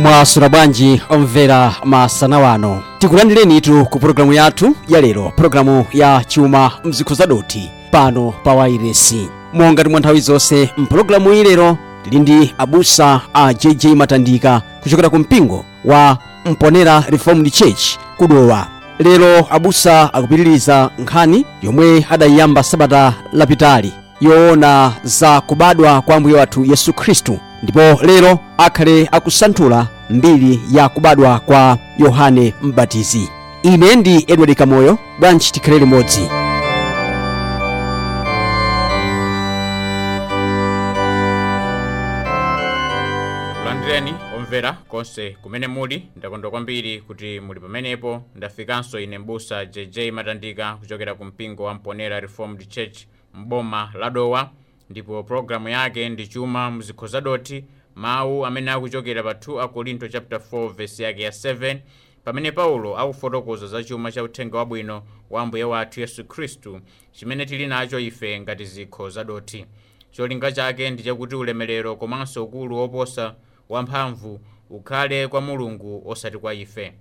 Mwaswera bwanji omvera masana wano, tikulandirenitu ku pulogalamu yathu ya lero, pulogalamu ya chuma mzikho zadoti pano pa wairesi. Monga timwa nthawi zonse mpulogalamu iyi lero tili ndi abusa a JJ Matandika kuchokera ku mpingo wa Mponera Reformed Church kudowa. Lero abusa akupitiriza nkhani yomwe adayiyamba sabata lapitali yoona za kubadwa kwa ambuye wathu Yesu Khristu, ndipo lero akhale akusanthula mbiri ya kubadwa kwa Yohane Mbatizi. Ine ndi Edward Kamoyo, bwanji tikhale limodzi. Kulandireni omvera konse kumene muli, ndakondwa kwambiri kuti muli pamenepo. Ndafikanso ine mbusa JJ Matandika kuchokera ku mpingo wa Mponera Reformed Church mboma la Dowa, ndipo programu yake ndi chuma mzikho zadoti, mawu amene akuchokera pa 2 Akorinto chapter 4 verse yake ya 7, pamene Paulo akufotokoza za chuma cha uthenga wabwino wa ambuye wathu Yesu Khristu chimene tili nacho ife ngati zikho zadoti. Cholinga chake ndi chakuti ulemerero komanso ukulu woposa wamphamvu ukhale kwa Mulungu osati kwa ife.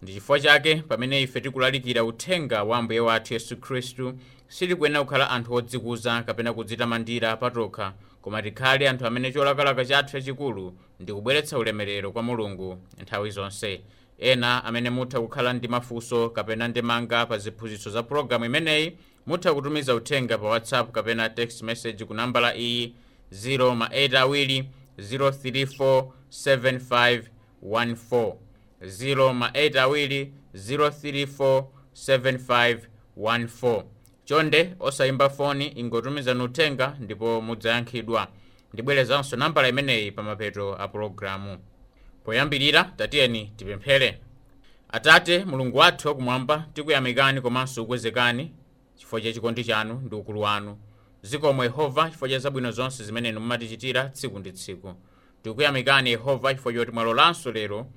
Ndi chifukwa chake pamene ife tikulalikira uthenga wa ambuye wathu Yesu Khristu sitikuyenera kukhala anthu odzikuza kapena kudzitamandira patokha, koma tikhale anthu amene cholakalaka chathu chachikulu ndi kubweretsa ulemerero kwa Mulungu nthawi zonse. Ena amene mutha kukhala ndi mafunso kapena ndemanga pa ziphunzitso za pulogalamu imeneyi mutha kutumiza uthenga pa WhatsApp kapena text message ku nambala iyi 082 034 7514, 082 034 7514. Chonde osayimba foni, ingotumizani uthenga ndipo mudzayankhidwa. Ndibwerezanso nambala imeneyi pa mapeto a pulogalamu. Poyambirira tatiyeni tipemphere. Atate Mulungu wathu wakumwamba, tikuyamikani komanso kukwezekani chifukwa cha chikondi chanu ndi ukulu wanu. Zikomo Yehova chifukwa cha zabwino zonse zimene mumatichitira tsiku ndi tsiku. Tikuyamikani Yehova chifukwa choti mwalolanso lero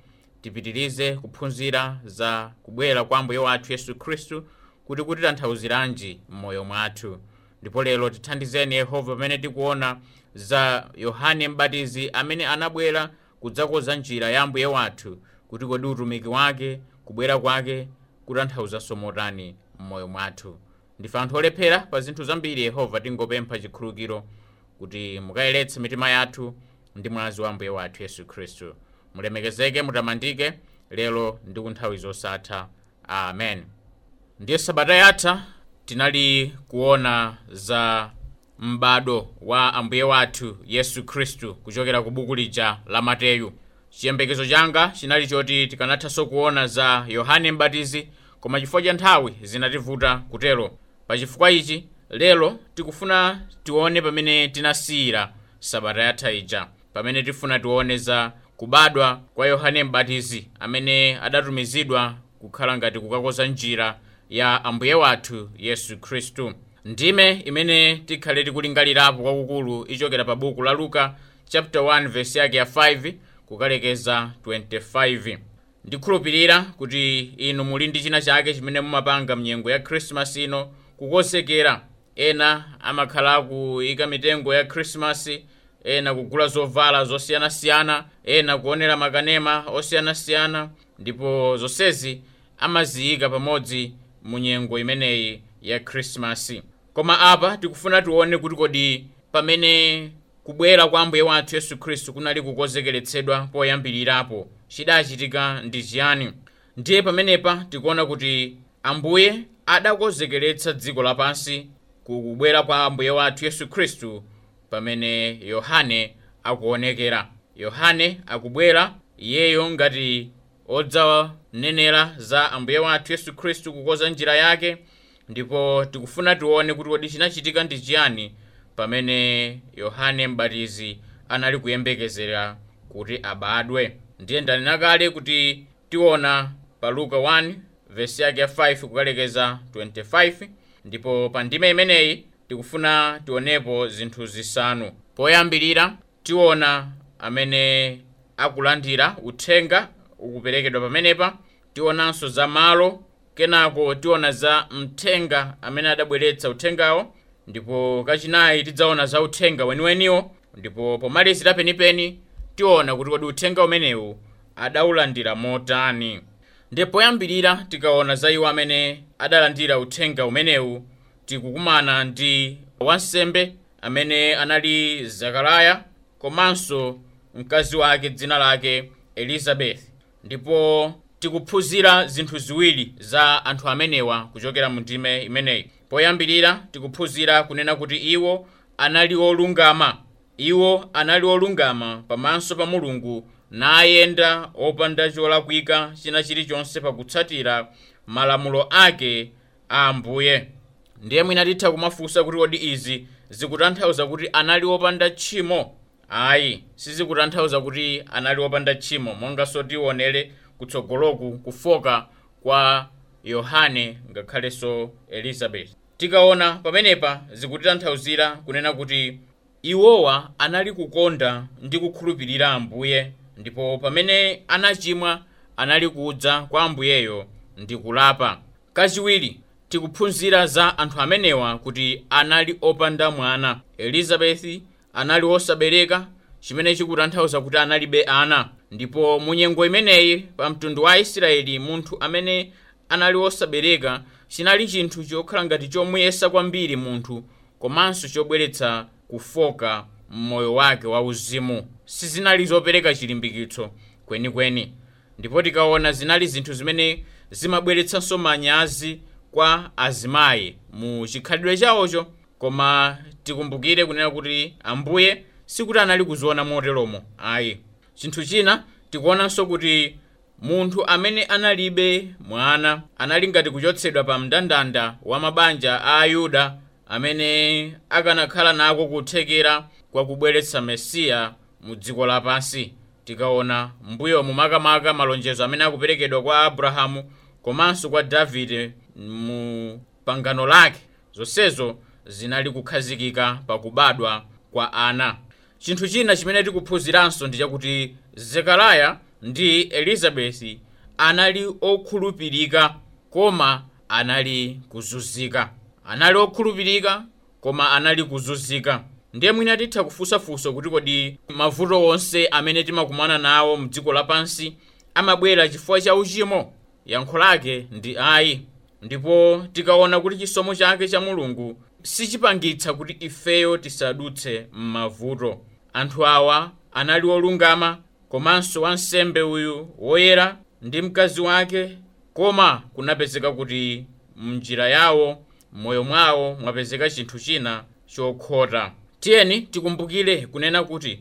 tipitirize kuphunzira za kubwera kwa ambuye wathu Yesu Khristu kuti kutitanthauziranje m'moyo mwathu. Ndipo lero tithandizeni Yehova pamene tikuona za Yohane Mbatizi amene anabwera kudzakonza njira ya ambuye wathu, kuti kodi utumiki wake, kubwera kwake kutanthauzanso motani m'moyo mwathu. Ndife anthu olephera pa zinthu zambiri Yehova, tingopempha chikhululukiro kuti mukayeretse mitima yathu ndi mwazi wa ambuye wathu Yesu Khristu. Mulemekezeke, mutamandike lero ndi ku nthawi zosatha. Amen. Ndiye sabata yatha tinali kuona za m'bado wa ambuye wathu Yesu Khristu kuchokera ku buku lija la Mateyu. Chiyembekezo changa chinali choti tikanathanso kuona za Yohane Mbatizi, koma chifukwa cha nthawi zinativuta kutero. Pa chifukwa ichi lero tikufuna tione pamene tinasiyira sabata yatha ija, pamene tifuna tione za kubadwa kwa Yohane Mbatizi amene adatumizidwa kukhala ngati kukakonza njira ya ambuye wathu Yesu Khristu. Ndime imene tikhale tikulingalirapo kwakukulu ichokera pa buku la Luka chapter 1 verse yake ya 5 kukalekeza 25. Ndikhulupirira kuti inu muli ndi china chake chimene mumapanga mnyengo ya Christmas ino kukonzekera. Ena amakhala kuyika mitengo ya Christmas, ena kugula zovala zosiyanasiyana, ena kuonera makanema osiyanasiyana, ndipo zonsezi amaziyika pamodzi mu nyengo imeneyi ya Christmas. Koma apa tikufuna tione kuti kodi pamene kubwera kwa ambuye wathu Yesu Khristu kunali kukonzekeretsedwa poyambirirapo chidachitika ndi chiyani. Ndiye pamenepa tikuona kuti ambuye adakonzekeretsa dziko lapansi kubwera kwa ambuye wathu Yesu Khristu pamene Yohane akuonekera. Yohane akubwera iyeyo ngati odzanenera za ambuye wathu Yesu Khristu kukonza njira yake, ndipo tikufuna tione kuti kodi chinachitika ndi chiyani pamene Yohane Mbatizi anali kuyembekezera kuti abadwe. Ndiye ndanena kale kuti tiona pa Luka 1 verse yake ya 5 kukalekeza 25, ndipo pa ndime imeneyi tikufuna tionepo zinthu zisanu. Poyambirira tiona amene akulandira uthenga ukuperekedwa pamenepa, tionanso za malo, kenako tiona za mthenga amene adabweretsa uthengawo, ndipo kachinayi tidzaona za uthenga weniweniwo, ndipo pomalizira penipeni tiona kuti kodi uthenga umenewu adawulandira motani? Ndipo poyambirira tikaona za iwo amene adalandira uthenga umenewu, tikukumana ndi wansembe amene anali Zakariya komanso mkazi wake dzina lake Elizabeth. Ndipo tikuphunzira zinthu ziwiri za anthu amenewa kuchokera mu ndime imeneyi. Poyambirira tikuphunzira kunena kuti iwo anali olungama. Iwo anali olungama pamaso pa Mulungu, nayenda opanda cholakwika china chilichonse pakutsatira malamulo ake a Ambuye. Ndiye mwina titha kumafunsa kuti kodi izi zikutanthauza kuti anali opanda tchimo? Ayi, sizikutanthauza kuti anali opanda tchimo, monganso tionere kutsogoloku kufoka kwa Yohane ngakhalenso Elizabeth. Tikaona pamenepa zikutitanthauzira kunena kuti iwowa anali kukonda ndi kukhulupirira Ambuye, ndipo pamene anachimwa anali kudza kwa Ambuyeyo ndi kulapa. Kachiwiri tikuphunzira za anthu amenewa kuti anali opanda mwana. Elizabeth anali wosabereka, chimene chikutanthauza kuti analibe ana. Ndipo mu nyengo imeneyi pa mtundu wa Israeli, munthu amene anali wosabereka chinali chinthu chokhala ngati chomuyesa kwambiri munthu, komanso chobweretsa kufoka m'moyo wake wauzimu. Sizinali zopereka chilimbikitso kwenikweni. Ndipo tikaona zinali zinthu zimene zimabweretsanso manyazi kwa azimayi mu chikhalidwe chawocho. Koma tikumbukire kunena kuti Ambuye sikuti anali kuziona moteromo, ayi. Chinthu china tikuonanso kuti munthu amene analibe mwana anali ngati kuchotsedwa pa mndandanda wa mabanja a Ayuda amene akanakhala nako kuthekera kwa kubweretsa Mesiya mu dziko lapansi. Tikaona mbuyo mumakamaka malonjezo amene akuperekedwa kwa Abrahamu komanso kwa Davide mu pangano lake, zonsezo zinali kukhazikika pakubadwa kwa ana. Chinthu china chimene tikuphunziranso ndi chakuti Zekariya ndi Elizabeth anali okhulupirika koma anali kuzunzika. Anali okhulupirika koma anali kuzunzika. Ndiye mwina titha kufunsafunsa kuti kodi mavuto onse amene timakumana nawo mdziko lapansi amabwera chifukwa cha uchimo? Yankho lake ndi ayi. Ndipo tikaona kuti chisomo chake cha Mulungu sichipangitsa kuti ifeyo tisadutse m'mavuto. Anthu awa anali olungama, komanso wansembe uyu woyera ndi mkazi wake, koma kunapezeka kuti mnjira yawo, m'moyo mwawo mwapezeka chinthu china chokhota. Tiyeni tikumbukire kunena kuti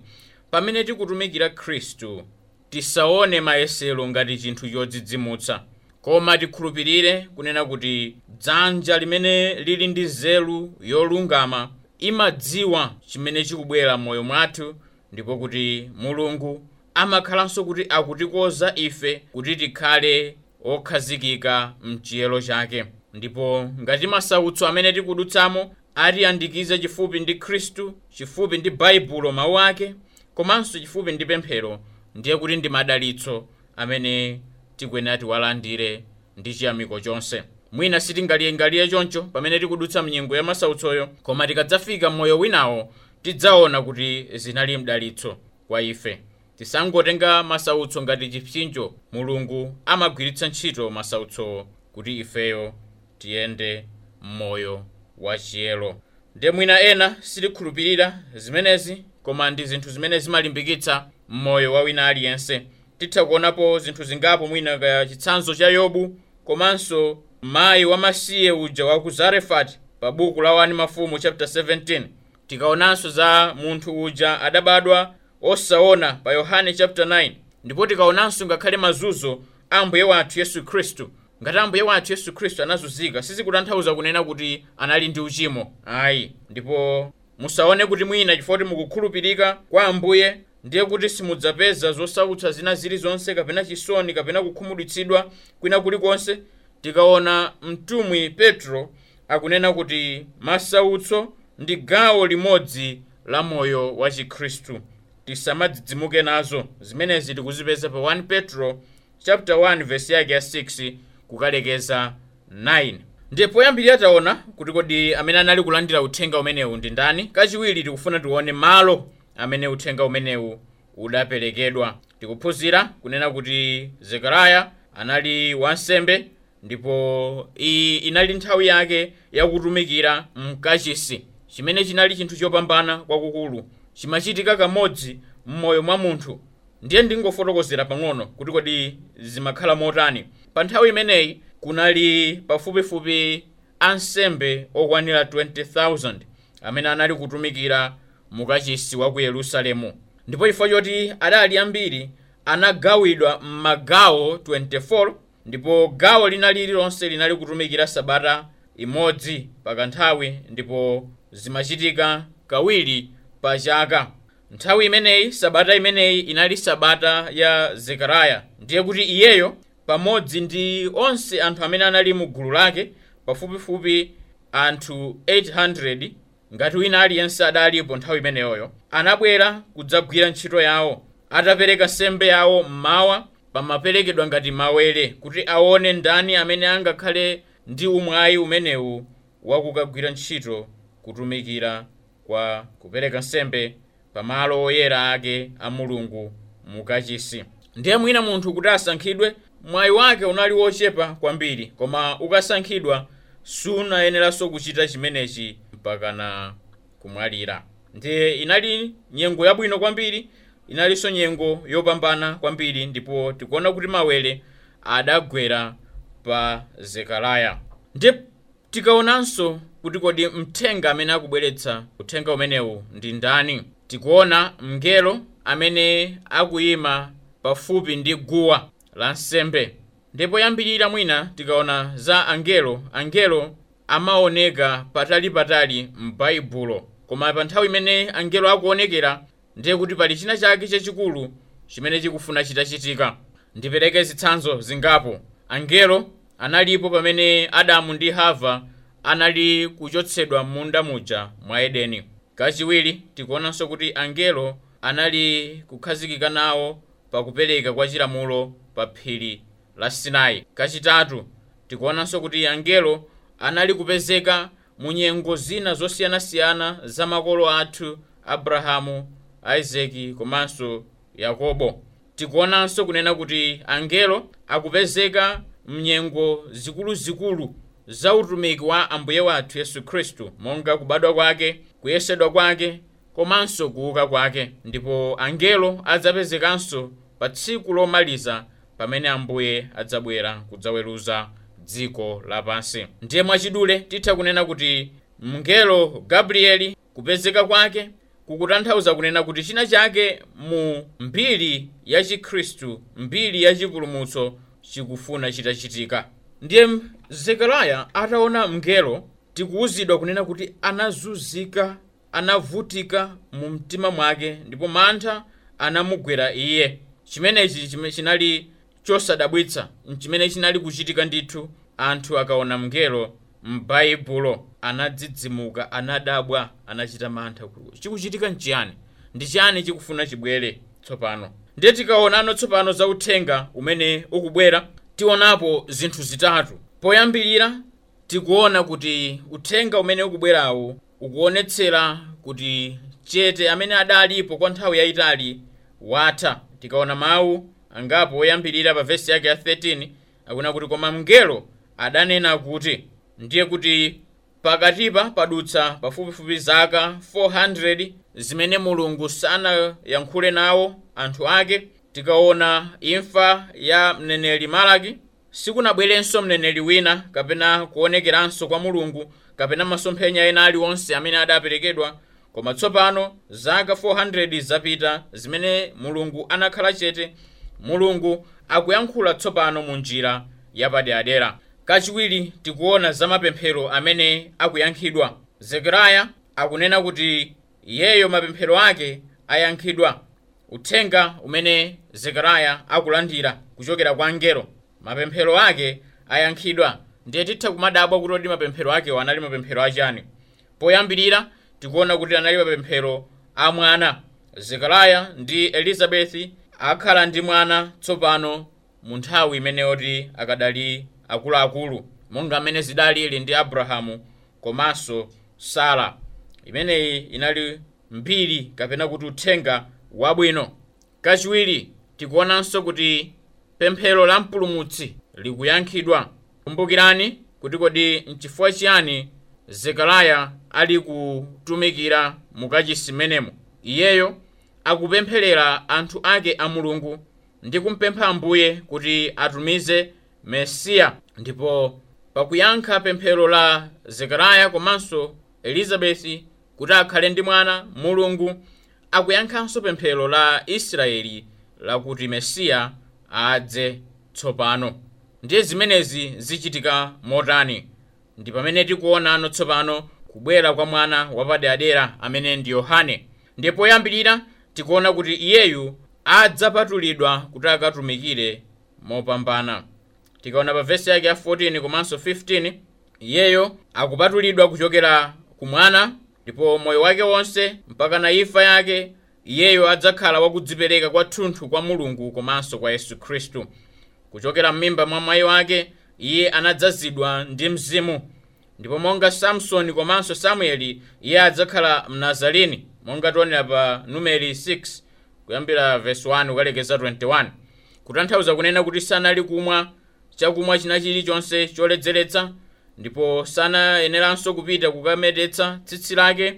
pamene tikutumikira Khristu tisaone mayesero ngati chinthu chodzidzimutsa, koma tikhulupirire kunena kuti dzanja limene lili ndi nzeru yolungama imadziwa chimene chikubwera m'moyo mwathu, ndipo kuti Mulungu amakhalanso kuti akutikoza ife kuti tikhale okhazikika mchiyero chake. Ndipo ngati masautso amene tikudutsamo atiyandikize chifupi ndi Khristu, chifupi ndi Baibulo mawu ake, komanso chifupi ndi pemphero, ndiye kuti ndi madalitso amene tikuyenera tiwalandire ndi chiyamiko chonse. Mwina sitingaliyengaliye choncho pamene tikudutsa mnyengo ya masautsoyo, koma tikadzafika m'moyo winawo tidzaona kuti zinali mdalitso kwa ife. Tisangotenga masautso ngati chipsinjo. Mulungu amagwiritsa ntchito masautsowo kuti ifeyo tiyende m'moyo wachiyero. Ndiye mwina ena sitikhulupirira zimenezi, koma ndi zinthu zimene zimalimbikitsa m'moyo wa wina aliyense. Titha kuonapo zinthu zingapo, mwina kaya chitsanzo cha Yobu komanso mayi wamasiye uja wa ku Zarefati pa buku la 1 Mafumu chapter 17. Tikaonanso za munthu uja adabadwa osaona pa Yohane chapter 9. Ndipo tikaonanso ngakhale mazunzo a Ambuye wathu Yesu Khristu. Ngati Ambuye wathu Yesu Khristu anazunzika, sizikutanthauza kunena kuti anali ndi uchimo, ayi. Ndipo musaone kuti mwina chifukwa kuti mukukhulupirika kwa Ambuye ndiye kuti simudzapeza zosautsa zina zilizonse kapena chisoni kapena kukhumudwitsidwa kwina kulikonse. Tikaona mtumwi Petro akunena kuti masautso ndi gawo limodzi la moyo wa Chikhristu, tisamadzidzimuke nazo. Zimenezi tikuzipeza pa 1 Petro chapter 1 verse yake ya 6 kukalekeza 9. Ndiye poyambirira taona kuti kodi amene anali kulandira uthenga umenewu ndi ndani. Kachiwiri tikufuna tione malo amene uthenga umenewu udaperekedwa. Tikuphunzira kunena kuti Zekariya anali wansembe ndipo iyi inali nthawi yake yakutumikira mkachisi, chimene chinali chinthu chopambana kwakukulu, chimachitika kamodzi m'moyo mwa munthu. Ndiye ndingofotokozera pang'ono kuti kodi zimakhala motani. Pa nthawi imeneyi kunali pafupifupi ansembe okwanira 20,000 amene anali kutumikira mukachisi wa ku Yerusalemu, ndipo chifukwa choti adali ambiri anagawidwa m'magawo 24, ndipo gawo lina lililonse linali kutumikira sabata imodzi pakanthawi, ndipo zimachitika kawiri pa chaka. Nthawi imeneyi, sabata imeneyi inali sabata ya Zekariya, ndiye kuti iyeyo pamodzi ndi onse anthu amene anali mu gulu lake, pafupifupi anthu 800 ngati wina aliyense adalipo nthawi imeneyoyo, anabwera kudzagwira ntchito yawo. Atapereka nsembe yawo mmawa, pamaperekedwa ngati mawere kuti aone ndani amene angakhale ndi umwayi umenewu wakukagwira ntchito kutumikira kwa kupereka nsembe pamalo oyera ake a Mulungu mukachisi. Ndiye mwina munthu kuti asankhidwe, mwayi wake unali wochepa kwambiri, koma ukasankhidwa sunayeneranso kuchita chimenechi mpakana kumwalira. Ndiye inali nyengo yabwino kwambiri, inalinso nyengo yopambana kwambiri, ndipo tikuona kuti mawere adagwera pa Zekariya. Ndiye tikaonanso kuti kodi mthenga amene akubweretsa uthenga umenewu ndi ndani, tikuona mngelo amene akuyima pafupi ndi guwa la nsembe. Ndipo yambirira mwina tikaona za angelo, angelo amaoneka patalipatali m'Baibulo, koma pa nthawi imene angelo akuonekera ndiye kuti pali china chake chachikulu chimene chikufuna chitachitika. Ndipereke zitsanzo zingapo. Angelo analipo pamene Adamu ndi Hava anali kuchotsedwa m'munda muja mwa Edeni. Kachiwiri tikuonanso kuti angelo anali kukhazikika nawo pakupereka kwa chilamulo pa phiri la Sinai. Kachitatu tikuonanso kuti angelo anali kupezeka mu nyengo zina zosiyanasiyana za makolo athu Abrahamu, Isaki komanso Yakobo. Tikuonanso kunena kuti angelo akupezeka mnyengo zikuluzikulu za utumiki wa Ambuye wathu Yesu Khristu, monga kubadwa kwake, kuyesedwa kwake komanso kuuka kwake. Ndipo angelo adzapezekanso pa tsiku lomaliza pamene Ambuye adzabwera kudzaweruza dziko lapansi. Ndiye mwachidule titha kunena kuti mngelo Gabrieli kupezeka kwake kukutanthauza kunena kuti china chake mu mbiri ya Chikhristu, mbiri ya chipulumutso chikufuna chitachitika. Ndiye Zekariya ataona mngelo, tikuwuzidwa kunena kuti anazunzika, anavutika mu mtima mwake, ndipo mantha anamugwera iye. Chimenechi chinali chosadabwitsa, chimene chinali kuchitika ndithu. Anthu akaona mngelo m'Baibulo anadzidzimuka, anadabwa, anachita mantha kuti chikuchitika nchiyani, ndi chiyani chikufuna chibwere tsopano. Ndiye tikaonano tsopano za uthenga umene ukubwera, tionapo zinthu zitatu. Poyambirira tikuona kuti uthenga umene ukubwerawu ukuonetsera kuti chete amene adalipo kwa nthawi yayitali watha. Tikaona mawu angapo oyambirira pa vesi yake ya 13 akuna kuti, koma mngelo adanena kuti, ndiye kuti pakatipa padutsa pafupifupi zaka 400 zimene Mulungu sanayankhule nawo anthu ake. Tikaona imfa ya mneneri Malaki, sikunabwerenso mneneri wina kapena kuonekeranso kwa Mulungu kapena masomphenya ena aliwonse amene adaperekedwa, koma tsopano zaka 400 zapita zimene Mulungu anakhala chete. Mulungu akuyankhula tsopano mu njira yapaderadera. Kachiwiri tikuona za mapemphero amene akuyankhidwa. Zekariya akunena kuti iyeyo mapemphero ake ayankhidwa. Uthenga umene Zekariya akulandira kuchokera kwa angelo, mapemphero ake ayankhidwa. Ndiye titha kumadabwa kuti kodi mapemphero akewo anali mapemphero achani. Poyambirira tikuona kuti anali mapemphero a mwana. Zekariya ndi Elizabeti akhala ndi mwana tsopano mu nthawi imeneyoti akadali akuluakulu, monga amene zidalili ndi Abrahamu komanso Sara. Imeneyi inali mbiri kapena kuti uthenga wabwino. Kachiwiri, tikuonanso kuti pemphero la mpulumutsi likuyankhidwa. Kumbukirani kuti kodi nchifukwa chiyani Zekariya ali kutumikira mukachisi menemo. Iyeyo akupempherera anthu ake a Mulungu ndi kumpempha Ambuye kuti atumize Mesiya. Ndipo pakuyankha pemphero la Zekariya komanso Elizabeti kuti akhale ndi mwana, Mulungu akuyankhanso pemphero la Israeli lakuti Mesiya adze tsopano. Ndiye zimenezi zichitika motani? Ndi pamene tikuonano tsopano kubwera kwa mwana wapaderadera amene ndi Yohane. Ndiye poyambirira tikuona kuti iyeyu adzapatulidwa kuti akatumikire mopambana. Tikaona pa vesi yake ya 14 komanso 15, iyeyo akupatulidwa kuchokera ku mwana, ndipo moyo wake wonse mpaka na imfa yake iyeyo adzakhala wakudzipereka kwathunthu kwa Mulungu komanso kwa Yesu Khristu. Kuchokera m'mimba mwa mayi wake iye anadzazidwa ndi Mzimu, ndipo monga Samsoni komanso Samueli iye adzakhala Mnazarini, monga tionera pa Numeri 6 kuyambira verse 1 kukalekeza 21, kutanthauza kunena kuti sanali kumwa chakumwa china chilichonse choledzeretsa, ndipo sanayeneranso kupita kukametetsa tsitsi lake,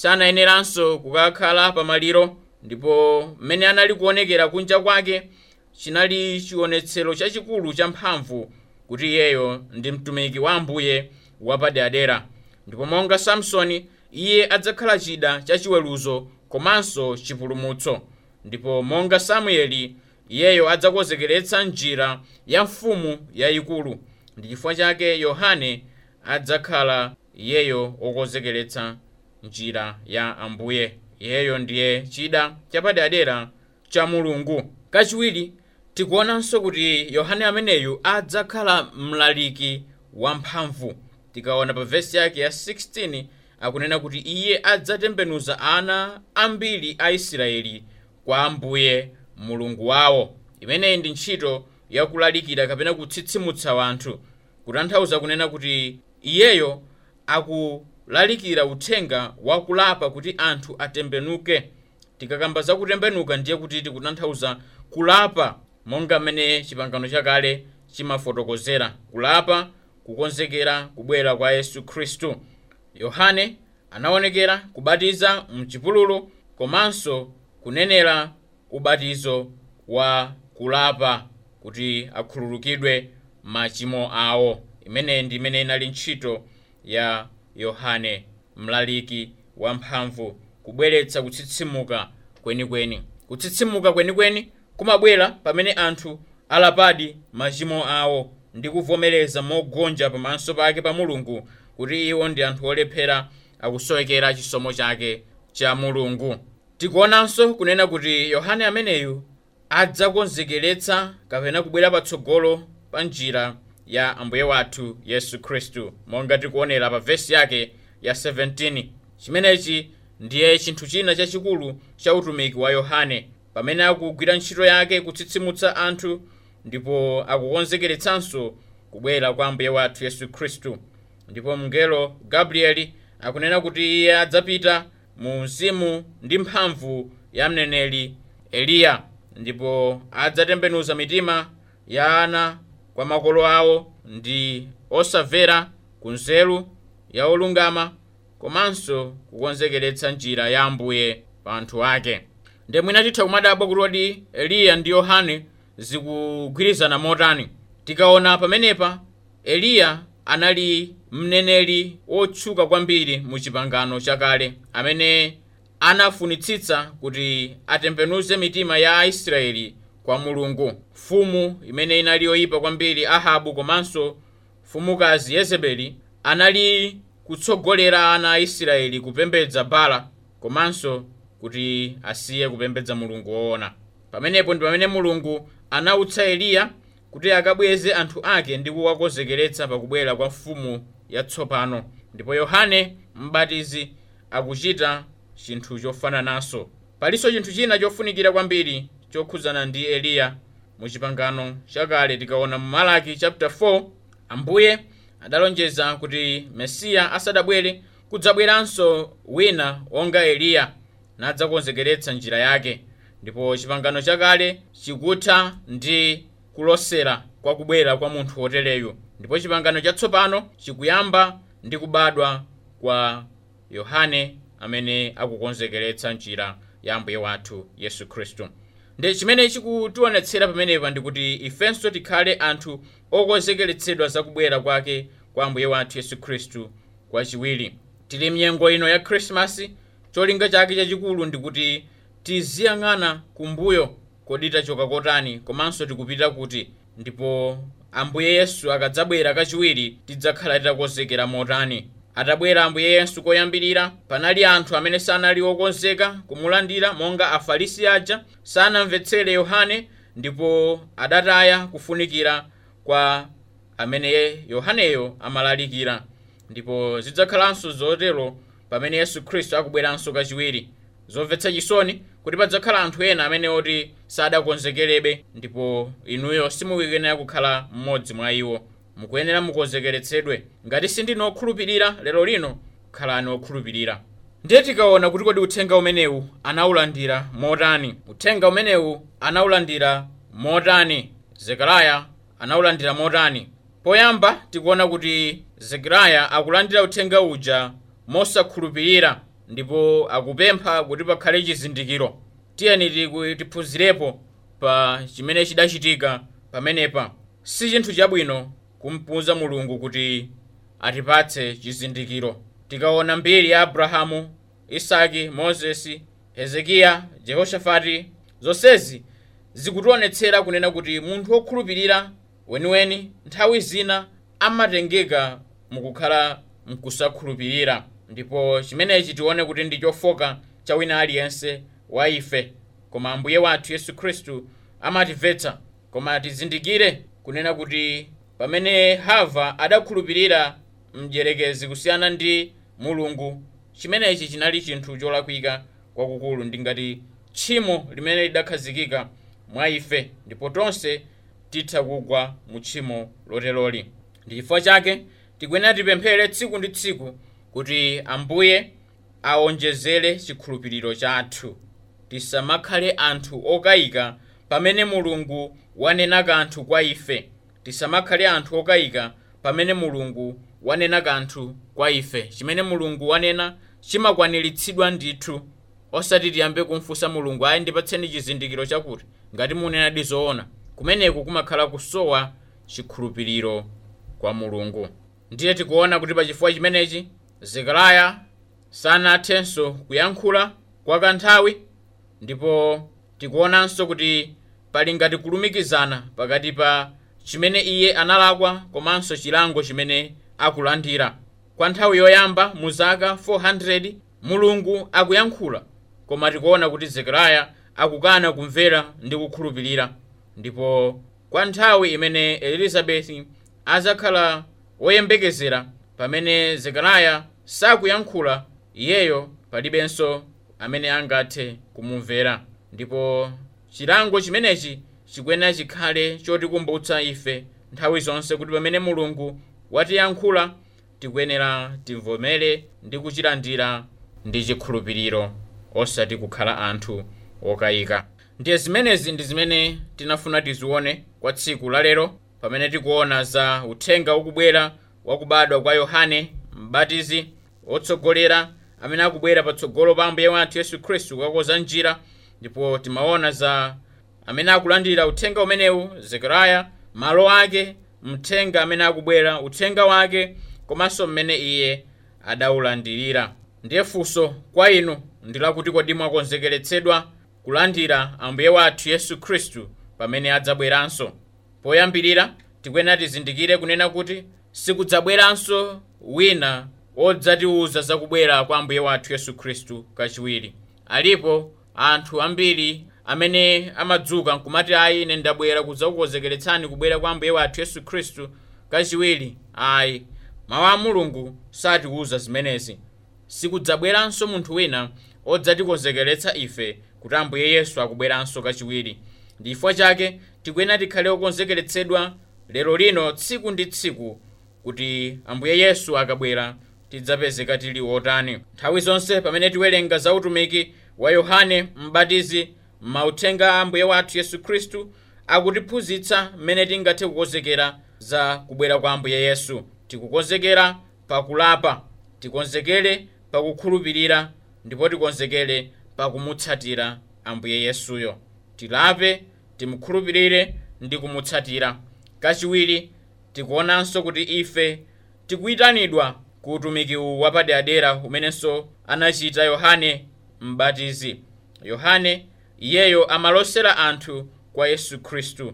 sanayeneranso kukakhala pamaliro. Ndipo mmene anali kuonekera kunja kwake chinali chionetsero chachikulu cha mphamvu kuti iyeyo ndi mtumiki wa Ambuye wapaderadera. Ndipo monga Samsoni iye adzakhala chida chachiweruzo komanso chipulumutso. Ndipo monga Samueli iyeyo adzakonzekeretsa njira ya mfumu yayikulu. Ndi chifukwa chake Yohane adzakhala iyeyo wokonzekeretsa njira ya Ambuye. Iyeyo ndiye chida chapaderadera cha Mulungu. Kachiwiri, tikuonanso kuti Yohane ameneyu adzakhala mlaliki wamphamvu. Tikaona pa vesi yake ya 16 akunena kuti iye adzatembenuza ana ambiri a Israeli kwa Ambuye Mulungu wawo. Imeneyi ndi ntchito yakulalikira kapena kutsitsimutsa wanthu, kutanthauza kunena kuti iyeyo akulalikira uthenga wakulapa kuti anthu atembenuke. Tikakamba za kutembenuka ndiye kuti tikutanthauza kulapa monga mmene chipangano chakale chimafotokozera, kulapa kukonzekera kubwera kwa Yesu Khristu. Yohane anaonekera kubatiza mchipululu komanso kunenera ubatizo wa kulapa kuti akhululukidwe machimo awo. Imeneyi ndi imene inali ntchito ya Yohane mlaliki wamphamvu, kubweretsa kutsitsimuka kwenikweni. Kutsitsimuka kwenikweni kumabwera pamene anthu alapadi machimo awo ndi kuvomereza mogonja pamaso pake pa Mulungu kuti iwo ndi anthu olephera, akusowekera chisomo chake cha Mulungu. Tikuonanso kunena kuti Yohane ameneyu adzakonzekeretsa kapena kubwera patsogolo pa njira ya Ambuye wathu Yesu Khristu, monga tikuonera pa vesi yake ya 17. Chimenechi ndiye chinthu china chachikulu cha utumiki wa Yohane pamene akugwira ntchito yake kutsitsimutsa anthu, ndipo akukonzekeretsanso kubwera kwa Ambuye wathu Yesu Khristu. Ndipo mngelo Gabrieli akunena kuti iye adzapita mu mzimu ndi mphamvu ya mneneri Eliya, ndipo adzatembenuza mitima ya ana kwa makolo awo ndi osamvera ku nzeru ya olungama, komanso kukonzekeretsa njira ya Ambuye pa anthu ake. Ndiye mwina titha kumadabwa kuti kodi Eliya ndi Yohane zikugwirizana motani. Tikaona pamenepa, Eliya anali mneneri wotchuka kwambiri mu chipangano chakale amene anafunitsitsa kuti atembenuze mitima ya Aisraeli kwa Mulungu. Mfumu imene inali yoyipa kwambiri Ahabu komanso mfumukazi Yezebeli anali kutsogolera ana a Israeli kupembedza Bala komanso kuti asiye kupembedza Mulungu woona. Pamenepo ndi pamene Mulungu anautsa Eliya kuti akabweze anthu ake ndi kuwakonzekeretsa pakubwera kwa mfumu yatsopano. Ndipo Yohane Mbatizi akuchita chinthu chofanananso. Palinso chinthu china chofunikira kwambiri chokhudzana ndi Eliya mu chipangano chakale. Tikaona mu Malaki chapter 4, Ambuye adalonjeza kuti Mesiya asadabwere kudzabweranso wina wonga Eliya nadzakonzekeretsa njira yake. Ndipo chipangano chakale chikutha ndi kulosera kwa kubwera kwa munthu wotereyu, ndipo chipangano chatsopano chikuyamba ndi kubadwa kwa Yohane amene akukonzekeretsa njira ya Ambuye wathu Yesu Khristu. Ndi chimene chikutionetsera pamenepa ndikuti ifenso tikhale anthu okonzekeretsedwa za kubwera kwake kwa Ambuye wathu Yesu Khristu kwachiwiri. Tili mnyengo ino ya Khrisimasi, cholinga chake chachikulu ndikuti tiziyang'ana kumbuyo, kodi tachoka kotani komanso tikupita kuti, ndipo Ambuye Yesu akadzabwera kachiwiri tidzakhala titakonzekera motani. Atabwera Ambuye Yesu koyambirira, panali anthu amene sanali okonzeka kumulandira, monga Afarisi aja sanamvetsere Yohane ndipo adataya kufunikira kwa amene Yohaneyo amalalikira. Ndipo zidzakhalanso zotero pamene Yesu Khristu akubweranso kachiwiri. Zomvetsa chisoni kuti padzakhala anthu ena amene oti sadakonzekerebe, ndipo inuyo simukuyenera kukhala mmodzi mwa iwo. Mukuyenera mukonzekeretsedwe. Ngati sindinu okhulupirira lero lino, khalani okhulupirira. Ndiye tikaona kuti kodi uthenga umenewu anawulandira motani. Uthenga umenewu anawulandira motani? Zekariya anawulandira motani? Poyamba tikuona kuti Zekariya akulandira uthenga uja mosakhulupirira ndipo akupempha kuti pakhale chizindikiro. Tiyeni tiphunzirepo pa chimene chidachitika pamenepa. Si chinthu chabwino kumpuza Mulungu kuti atipatse chizindikiro. Tikaona mbiri ya Abrahamu, Isaki, Mozesi, Hezekiya, Jehoshafati, zonsezi zikutionetsera kunena kuti munthu wokhulupirira weniweni nthawi zina amatengeka mukukhala mkusakhulupirira. Ndipo chimenechi tione kuti ndi chofoka cha wina aliyense wa ife, koma Ambuye wathu Yesu Khristu amatimvetsa. Koma tizindikire kunena kuti pamene Hava adakhulupirira mdierekezi kusiyana ndi Mulungu, chimenechi chinali chinthu cholakwika kwakukulu, ndi ngati tchimo limene lidakhazikika mwa ife, ndipo tonse titha kugwa mu tchimo loteroli. Ndi chifukwa chake tikuyenera tipemphere tsiku ndi tsiku kuti Ambuye aonjezere chikhulupiriro chathu. Tisamakhale anthu okayika pamene Mulungu wanena kanthu kwa ife. Tisamakhale anthu okayika pamene Mulungu wanena kanthu kwa ife. Chimene Mulungu wanena chimakwaniritsidwa ndithu. Osati tiyambe kumfunsa Mulungu, ayi ndipatseni chizindikiro chakuti, ngati munenadi zoona. Kumeneku kumakhala kusowa chikhulupiriro kwa Mulungu. Ndiye tikuona kuti pachifukwa chimenechi Zekariya sanathenso kuyankhula kwa kanthawi, ndipo tikuonanso kuti pali ngati kulumikizana pakati pa chimene iye analakwa komanso chilango chimene akulandira. Kwa nthawi yoyamba mu zaka 400 Mulungu akuyankhula, koma tikuona kuti Zekariya akukana kumvera ndi kukhulupirira. Ndipo kwa nthawi imene Elizabeti azakhala woyembekezera, pamene Zekariya sakuyankhula, iyeyo palibenso amene angathe kumumvera. Ndipo chilango chimenechi chikuyenera chikhale chotikumbutsa ife nthawi zonse kuti pamene Mulungu watiyankhula tikuyenera timvomere ndi kuchilandira ndi chikhulupiriro, osati kukhala anthu okayika. Ndiye zimenezi ndi zimene tinafuna tizione kwa tsiku la lero, pamene tikuona za uthenga ukubwera wakubadwa kwa Yohane Mbatizi, wotsogolera amene akubwera patsogolo pa Ambuye wathu Yesu Khristu kukakonza njira. Ndipo timaona za amene akulandira uthenga umenewu, Zekariya, malo ake, mthenga amene akubwera, uthenga wake, komanso mmene iye adawulandirira. Ndiye funso kwa inu ndi lakuti kodi mwakonzekeretsedwa kulandira Ambuye wathu Yesu Khristu pamene adzabweranso? Poyambirira tikuyenera tizindikire kunena kuti sikudzabweranso wina wodzatiwuza zakubwera kwa Ambuye wathu Yesu Khristu kachiwiri. Alipo anthu ambiri amene amadzuka nkumati, ayi ine ndabwera kudzakukonzekeretsani kubwera kwa Ambuye wathu Yesu Khristu kachiwiri. Ayi, mawu a Mulungu satiwuza zimenezi. Sikudzabweranso munthu wina odzatikonzekeretsa ife kuti Ambuye Yesu akubweranso kachiwiri. Ndi chifukwa chake tikuyenera tikhale okonzekeretsedwa lero lino tsiku ndi tsiku kuti Ambuye Yesu akabwera tidzapezeka tili otani. Nthawi zonse pamene tiwerenga za utumiki wa Yohane Mbatizi Mauthenga a Ambuye wathu Yesu Khristu akutiphunzitsa mmene tingathe kukonzekera za kubwera kwa Ambuye Yesu. Tikukonzekera pakulapa, tikonzekere pakukhulupirira, ndipo tikonzekere pakumutsatira Ambuye Yesuyo. Tilape, timukhulupirire ndi kumutsatira. Kachiwiri, tikuonanso kuti ife tikuyitanidwa ku utumiki uwu wapaderadera umenenso anachita Yohane Mbatizi. Yohane iyeyo amalosera anthu kwa Yesu Khristu,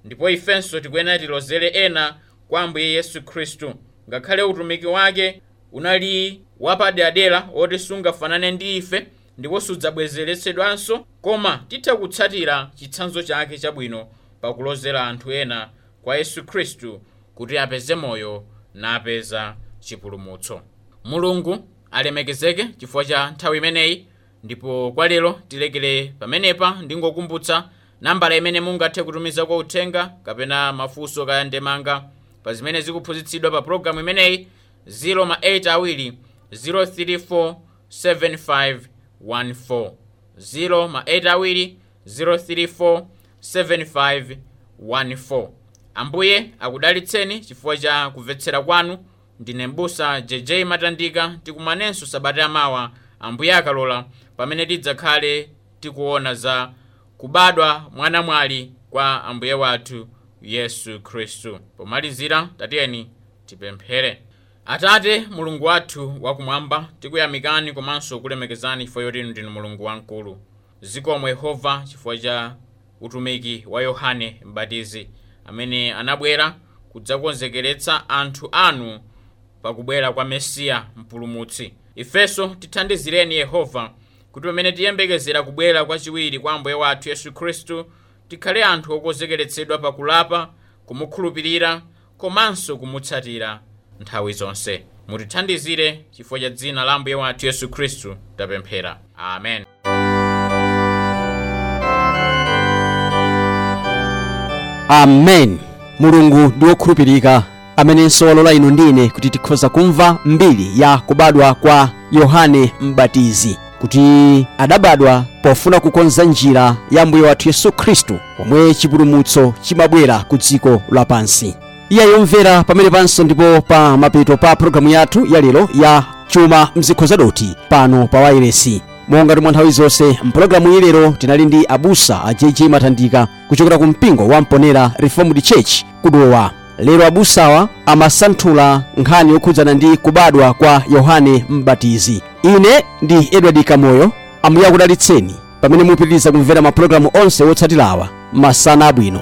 ndipo ifenso tikuyenera tilozere ena kwa Ambuye Yesu Khristu. Ngakhale utumiki wake unali wapaderadera woti sungafanane ndi ife ndipo sudzabwezeretsedwanso, koma titha kutsatira chitsanzo chake chabwino pakulozera anthu ena kwa Yesu Khristu kuti apeze moyo napeza chipulumutso. Mulungu alemekezeke chifukwa cha nthawi imeneyi, ndipo kwa lero tilekere pamenepa. Ndingokumbutsa nambala imene mungathe kutumiza kwa uthenga kapena mafunso kaya ndemanga pa zimene zikuphunzitsidwa pa pologalamu imeneyi: 0 ma 8 2 034 7514, 0 ma 8 2 034 7514. Ambuye akudalitseni chifukwa cha kumvetsera kwanu. Ndine mbusa JJ Matandika. Tikumanenso sabata yamawa, Ambuye akalola, pamene tidzakhale tikuona za kubadwa mwanamwali kwa Ambuye wathu Yesu Khristu. Pomalizira, tatiyeni tipemphere. Atate Mulungu wathu wakumwamba, tikuyamikani komanso kulemekezani chifukwa choti inu ndinu Mulungu wamkulu. Zikomo Yehova chifukwa cha utumiki wa Yohane Mbatizi amene anabwera kudzakonzekeretsa anthu anu pakubwera kwa Mesiya Mpulumutsi. Ifenso tithandizireni Yehova, kuti pamene tiyembekezera kubwera kwachiwiri kwa Ambuye wathu Yesu Khristu, tikhale anthu okonzekeretsedwa pakulapa, kumukhulupirira komanso kumutsatira nthawi zonse. Mutithandizire chifukwa cha dzina la Ambuye wathu Yesu Khristu tapemphera, amen. Amen. Mulungu ndi wokhulupirika, amenenso walola inu ndine kuti tikhoza kumva mbiri ya kubadwa kwa Yohane Mbatizi, kuti adabadwa pofuna kukonza njira ya Mbuye wathu Yesu Khristu, pomwe chipulumutso chimabwera ku dziko lapansi. Iye yomvera pamene panso ndipo pa mapeto pa pologalamu yathu ya lero ya Chuma Mzikho Zadoti pano pa wailesi. Monga mwa nthawi zonse, mpulogalamu iyi lero tinali ndi abusa a JJ Matandika kuchokera ku mpingo wa Mponera Reformed Church kudowa. Lero abusawa amasanthula nkhani yokhudzana ndi kubadwa kwa Yohane Mbatizi. Ine ndi Edward Kamoyo. Ambuye akudalitseni pamene mupitiriza kumvera mapulogalamu onse wotsatirawa. Masana abwino.